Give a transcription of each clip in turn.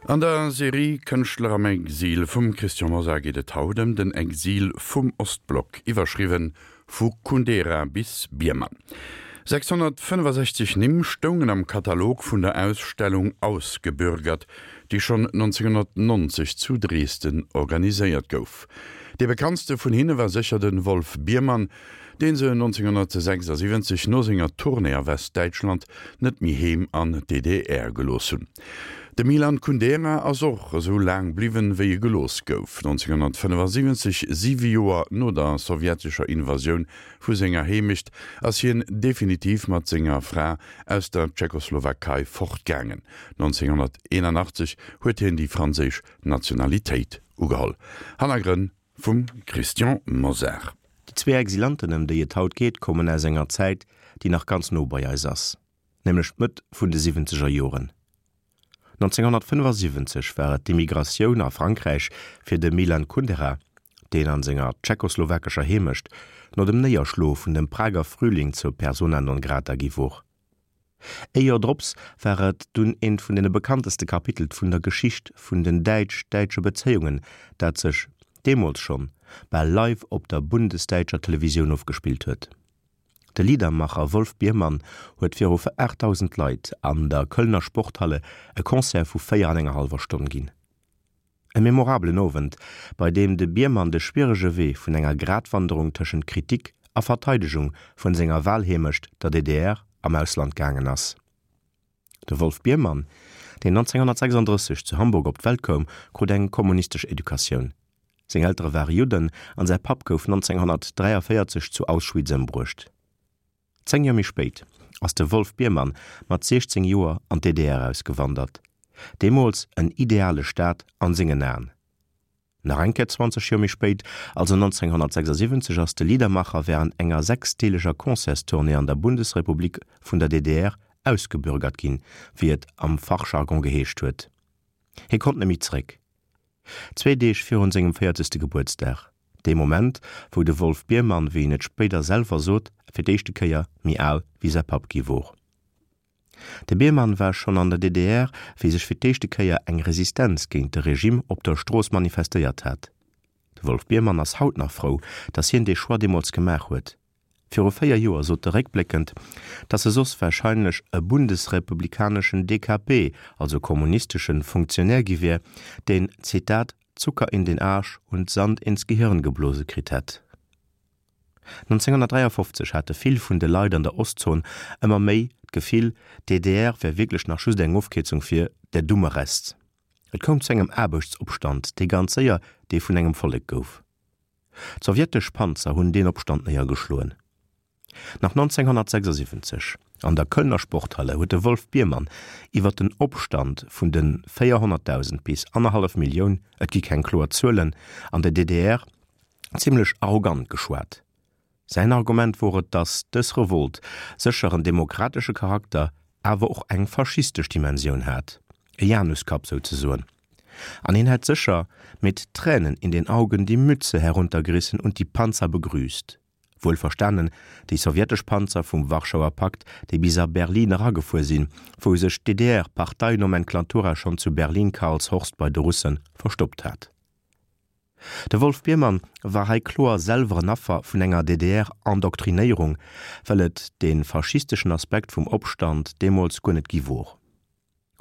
An der Serie Kënschtler am Exil vum Christian Mosar geet et haut ëm den Exil vum Ostblock, iwwerschriwwen Vu Kundera bis Biermann. 665 Nimm stoungen am Katalog vun der Ausstellung Ausgebürgert, déi schonn 1990 zu Dresden organiséiert gouf. Dee bekanntste vun hinne war sécher de Wolf Biermann, dee se 1976 no senger Tournée a Westdäitschland net méi heem an d'DDR gelooss hunn. De Milan Kundera ass och esou laang bliwwen, wéi e gelooss gouf. 1975, siwe Joer no der sowjetescher Invasioun vu senger Heemecht, ass hien definitiv mat senger Fra aus der Tschechoslowakei fortgaangen. 1981 huet hien déi franséisch Nationalitéit ugeholl. Hannergrënn vum Christian Mosar. Déi zwee Exilanten, ëm déi et haut geet, kommen aus enger Zäit, déi nach ganz no bei eis ass. nämlech d'Mëtt vun de siwwenzeger Joren. 1975 war et d'Immigratioun a Frankräich fir de Milan Kundera, deen an senger tschechoslowakescher Heemecht no dem Néierschloe vun dem Prager Frühling zur Persona non grata gi wor. Ee Joer drops war et dunn eent vun deene bekannteste Kapitelt vun der Geschicht vun den däitsch-däitsche Bezéiungen, dat sech, deemools schonn, bal live op der bundesdäitscher Televisioun ofgespillt huet. De Liedermacher Wolf Biermann huet viru 8.000 Leit an der Kölner Sporthalle e Concert vu 4 an enger hallwer Stonn ginn. E memorabelen Owend, bei deem de Biermann de schwierege Wee vun enger Gratwanderung tëschent Kritik a Verteidegung vun senger Walheemecht, der DDR, am Ausland gaangen ass. De Wolf Biermann, deen 1936 zu Hamburg op d'Welt koum, krut eng kommunistesch Educatioun. Seng Eltere ware Judden an säi Papp gouf 1943 zu Auschwitz ëmbruecht. Zéng Joer méi spéit ass de Wolf Biermann mat 16 Joer an d'DDR ausgewandert, deemools en ideale Staat an sengen Aen. Nach eng Kéier 20 Joer méi spéit, also 1976, ass de Liedermacher wärend enger sechsdeeleger Concertstournée an der Bundesrepublik vun der DDR ausgebürgert ginn, wéi et am Fachjargon geheescht huet. Hie konnt net méi zeréck. Zwee Deeg virun sengem véierzegste Gebuertsdag, dee Moment, wou de Wolf Biermann, wéi en et spéider selwer sot, fir d'éischte Kéier méi al wéi säi Papp gi wor. De Biermann war schonn an der DDR, wéi sech fir d'éischte Kéier eng Resistenz géint de Regime op der Strooss manifestéiert hat. De Wolf Biermann ass haut nach frou, datt hien dee Choix deemools gemaach huet. Viru 4 Joer sot e réckbléckend, datt e soss warscheinlech e bundesrepublikaneschen DKP, also kommunisteschen Funktionär gi wier, deen, Zitat, Zucker in den Arsch und Sand ins Gehirn geblose kritt hätt. 1953 hate vill vun de Leit an der Ostzon ëmmer méi d'Gefill, d'DDR wär wierklech nach just eng Ofkierzung fir der dumme Rest. Et koum zu engem Aarbechtsopstand, dee ganz séier dee vun engem Vollek gouf. D'sowjetesch Panzer hunn deen Opstand néiergeschloen. Nach 1976 an der Kölner Sporthalle huet de Wolf Biermann iwwer den Opstand vun de 400.000 bis annerhallef Millioun, et gi keng kloer Zuelen, an der DDR zimmlech arrogant geschwat. Säin Argument wor et, datt dës Revolt sécher en demokratesche Charakter, awer och eng faschistesch Dimensioun hat, e Januskapp souzesoen. An hien hätt sécher mit Tränen in den Augen die Mütze heruntergerissen und die Panzer begrüßt. Wuel verstanen, déi sowjetesch Panzer vum Warschauer Pakt, déi bis a Berlin eragefuer sinn, wou sech d'DDR-Parteinomenklatura schonn zu Berlin-Karlshorst bei de Russe verstoppt hat. De Wolf Biermann war hei kloer selwer en Affer vun enger DDR-Endoktrinéierung, well et dee faschisteschen Aspekt vum Opstand deemools guer net gi wor.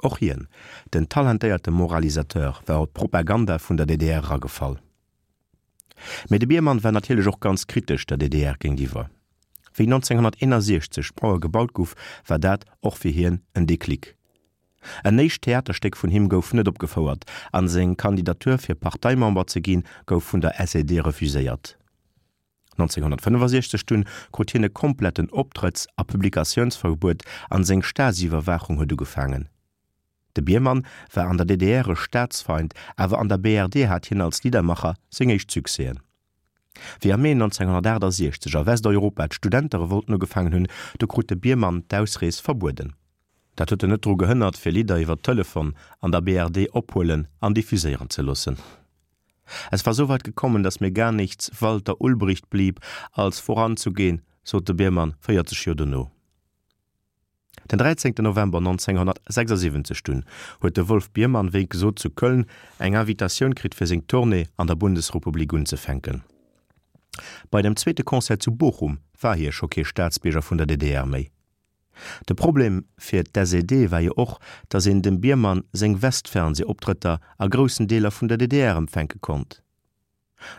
Och hien, den talentéierte Moralisateur, war op d'Propaganda vun der DDR eragefall. Mee de Biermann war natierlech och ganz kritesch der DDR géintiwwer. Wéi 1961 d'Mauer gebaut guff, war dat och fir hien en Déclic. En éischt Theaterstéck vun him gouf net opgefouert an seng Kandidatur fir Parteimember ze ginn gouf vun der SED refuséiert. 1965 dunn krut hien e kompletten Optrëtts a Publikatiounsverbuet an seng Stasi-Iwwerwaachung huet ugefaangen. De Biermann war an der DDR e Staatsfeind, awer an der BRD hat hien als Liedermacher seng éischt Succèsen. Wéi am Mee 1968 a Westeuropa d'Studenterevolten ugefaangen hunn, du krut de Biermann d'Ausrees verbueden. Dat huet en net dru gehënnert, fir Lidder iwwer Telefon an der BRD ophuelen an diffuséieren ze loossen. Es war soweit gekommen, dass mir gar nichts Walter Ulbricht blieb, als voranzugehen, sot de Biermann 40 Joer dono. Den 13 November 1976 dunn huet de Wolf Biermann wéi gesot zu Köln eng Invitatioun kritt fir seng Tournée an der Bundesrepublik unzefänken. Bei dem zweete Concert zu Bochum war hie scho kee Staatsbierger vun der DDR méi. De Problem fir d'SED war jo och, datt een dem Biermann seng Westfernseh-Optrëtter a groussen Deeler vun der DDR empfänke konnt.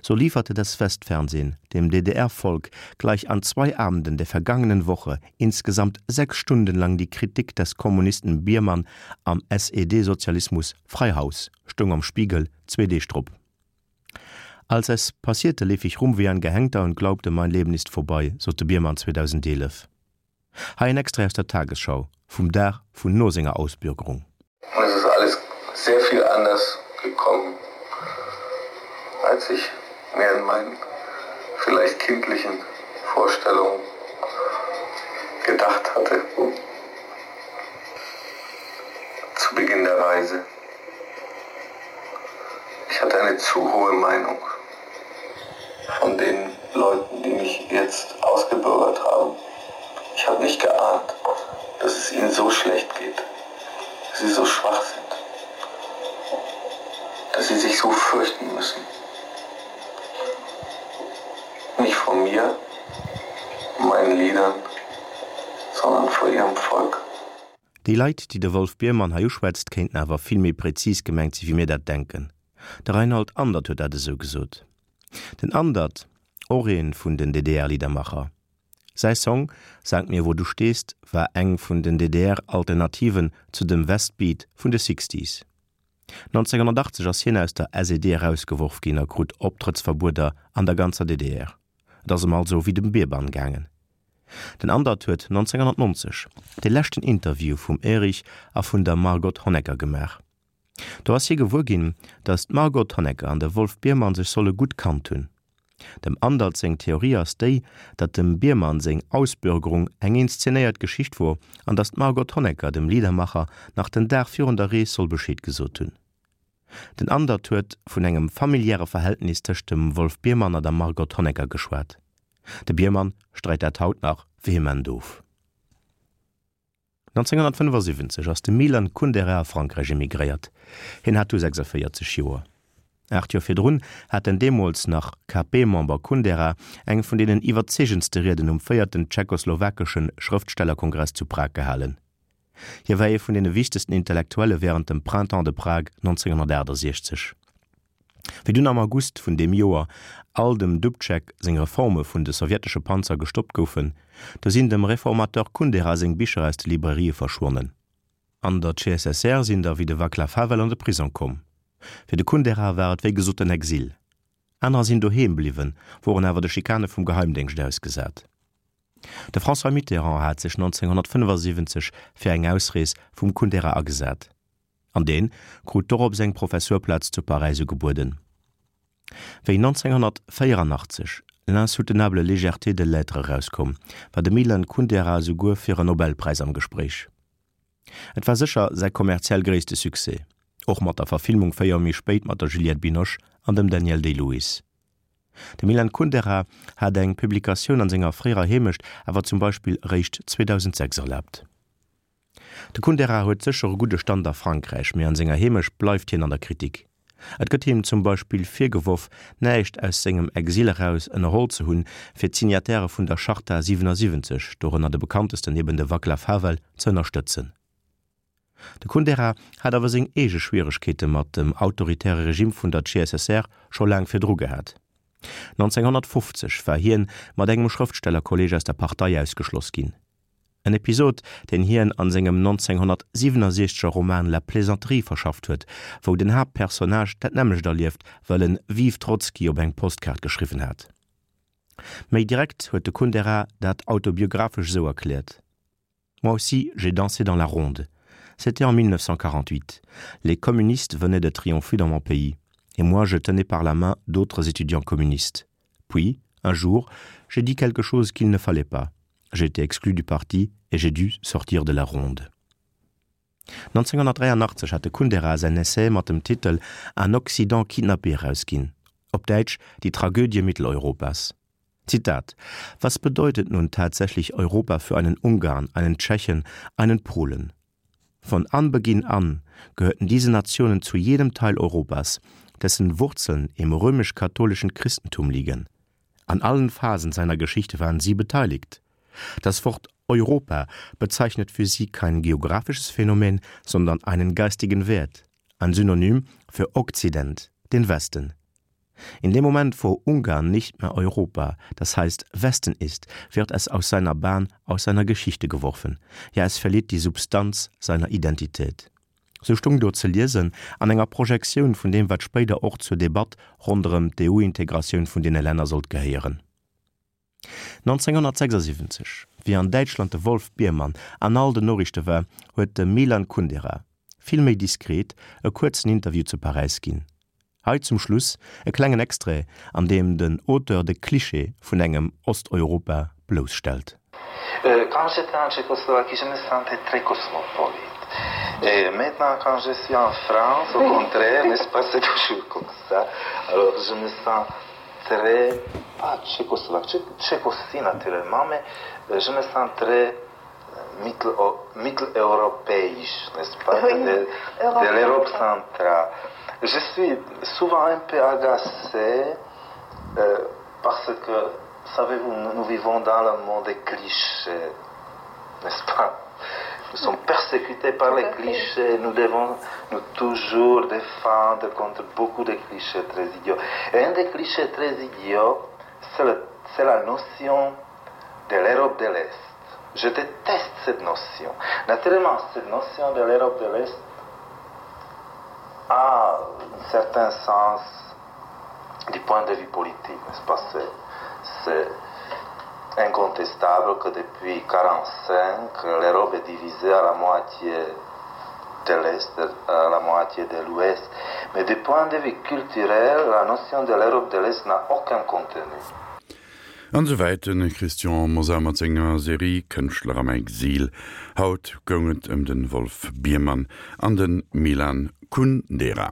So lieferte das Westfernsehen dem DDR-Volk gleich an zwei Abenden der vergangenen Woche insgesamt sechs Stunden lang die Kritik des Kommunisten Biermann am SED-Sozialismus frei Haus, stoung am Spiegel zwee Deeg drop. Als es passierte, lief ich rum wie ein Gehängter und glaubte, mein Leben ist vorbei, sot de Biermann 2011. Hei en Extrait aus der Tagesschau vum Dag vun no senger Ausbürgerung. Und es ist alles sehr viel anders gekommen, als ich mir in meinen vielleicht kindlichen Vorstellungen gedacht hatte. Zu Beginn der Reise. Ich hatte eine zu hohe Meinung von den Leuten, die mich jetzt ausgebürgert haben. Ich habe nicht geahnt, dass es ihnen so schlecht geht, dass sie so schwach sind, dass sie sich so fürchten müssen. Nicht von mir, meinen Liedern, sondern vor ihrem Volk. Déi Leit, déi de Wolf Biermann hei uschwätzt, kéinten awer vill méi präzis gemengt si wéi mir dat denken. De Reinhold Andert huet dat esou gesot. Den Andert, och ee vun den DDR-Liedermacher. Säi Song Sag mir wo du stehst war eng vun den DDR-Alternativen zu dem Westbeat vun de Sixties. 1980 ass hien aus der SED erausgeworf ginn a krut Optrëttsverbueder an der ganzer DDR. Et ass em also wéi dem Bierbann gaangen. Den Andert huet 1990 de leschten Interview vum Erich a vun der Margot Honecker gemaach. Do ass hie gewuer ginn, datt d'Margot Honecker an de Wolf Biermann sech solle gutt kannt hunn. Dem Andert seng Theorie ass déi, datt dem Biermann seng Ausbürgerung eng inszenéiert Geschicht wor an datt d'Margot Honecker dem Liedermacher nach den Dag virun der Rees soll Bescheed gesot hunn. Den Andert huet vun engem familiäre Verhältnis tëscht dem Wolf Biermann a der Margot Honecker geschwat. De Biermann streit dat haut nach vehement of. 1975 ass de Milan Kundera a Frankräich emigréiert. Hien hat du 46 Joer. Aacht Joer virdrun hat den deemools nach KP-Member Kundera eng vun deenen iwwerzeegendste Rieden um véierten tschechoslowakesche Schrëftstellerkongress zu Prag gehalen. Hie war ee vun deene wichtegsten Intellektuelle wärend dem Printemps de Prague 1968. Wéi dunn am August vun deem Joer all dem Dubček seng Reforme vun de sowjetesche Panzer gestoppt goufen, do sinn dem Reformateur Kundera seng Bicher aus de Librairië verschwonnen. An der CSSR sinn der wéi de Vaclav Havel an de Prisong komm. Fir de Kundera war et wéi gesot den Exil. Anerer sinn doheem bliwwen, woren awer de Schikane vum Geheimdéngscht ausgesat. De François Mitterrand hat sech 1975 fir eng Ausrees vum Kundera agesat. An deen krut dorops eng Professurplaz zu Paräis ugebueden. Wéi 1984 L'insoutenable légèreté de l'être erauskoum, war de Milan Kundera esouguer fir en Nobelpräis am Gespréich. Et war sécher säi kommerziell gréisste Succès, och mat der Verfilmung 4 Joer méi spéit mat der Juliette Binoche an dem Daniel Day-Lewis. De Milan Kundera hat eng Publikatioun an senger fréierer Heemecht awer zum Beispill eréischt 2006 erlaabt. De Kundera huet sécher e gudde Stand a Frankräich, mee an senger Heemecht bleift hien an der Kritik. Et gëtt him zum Beispill virgeworf, näischt aus sengem Exil eraus ënnerholl ze hunn, fir d'Signatairë vun der Charta 77, dorënner de bekanntesten eben de Vaclav Havel, ze ënnerstëtzen. De Kundera hat awer seng eege Schwieregkeete mat dem autoritäre Regime vun der CSSR scho laang virdru gehat. 1950 war hien mat engem Schrëftstellerkolleeg aus der Partei ausgeschloss ginn. En Episod, deen hien an sengem 1967 er Roman La Plaisanterie verschafft huet, wou den Haaptpersonnage dat nämmlecht erlieft, well en Vive Trotzki op eng Postkaart geschriwwen hat. Méi direkt huet de Kundera dat autobiographesch esou erkläert, Moi aussi, j'ai dansé dans la ronde. C'était en 1948. Les communistes venaient de triompher dans mon pays. Et moi, je tenais par la main d'autres étudiants communistes. Puis, un jour, j'ai dit quelque chose qu'il ne fallait pas. J'ai été exclu du parti et j'ai dû sortir de la ronde. 1983 hat de Kundera säin Essai mat dem Titel Un Occident kidnappé erausginn, op Däitsch Die Tragödie Mitteleuropas. Zitat: Was bedeutet nun tatsächlich Europa für einen Ungarn, einen Tschechen, einen Polen? Von Anbeginn an gehörten diese Nationen zu jedem Teil Europas, dessen Wurzeln im römisch-katholischen Christentum liegen. An allen Phasen seiner Geschichte waren sie beteiligt. Das Wort Europa bezeichnet für sie kein geografisches Phänomen, sondern einen geistigen Wert, ein Synonym für Okzident, den Westen. In dem Moment, wo Ungarn nicht mehr Europa, das heißt Westen ist, wird es aus seiner Bahn, aus seiner Geschichte geworfen. Ja, es verliert die Substanz seiner Identität. Sou stung do ze liesen an enger Projektioun vun deem, wat spéider och zur Debatt ronderëm d'EU-Integratioun vun deene Länner sollt gehéieren. 1976, wéi an Däitschland de Wolf Biermann an all den Noriichte war, huet de Milan Kundera, vill méi diskret, e kuerzen Interview zu Paräis ginn. Hei zum Schluss e klengen Extrait, an deem den Auteur de Cliché vun engem Osteuropa blousstellt. Quand j'étais en Tchécoslovaquie, je me sentais très cosmopolite. Et maintenant, quand je suis en France, au contraire, n'est-ce pas, c'est toujours comme ça. Alors, je me sens très, pas tchécoslovaque, tchèque aussi naturellement, mais euh, je me sens très mitteleuropéisch, n'est-ce pas, oui, de, de l'Europe centrale. Je suis souvent un peu agacé euh, parce que, savez-vous, nous, nous vivons dans le monde des clichés, n'est-ce pas Nous sommes persécutés par les clichés, nous devons nous toujours défendre contre beaucoup de clichés très idiots. Et un des clichés très idiots, c'est la notion de l'Europe de l'Est. Je déteste cette notion. Naturellement, cette notion de l'Europe de l'Est a un certain sens du point de vue politique, n'est-ce pas C'est incontestable que depuis 1945, l'Europe est divisée à la moitié de l'Est, à la moitié de l'Ouest. Mais du point de vue culturel, la notion de l'Europe de l'Est n'a aucun contenu. An esou wäit de Christian Mosar mat senger Serie Kënschtler am Exil. Haut goung et ëm de Wolf Biermann an de Milan Kundera.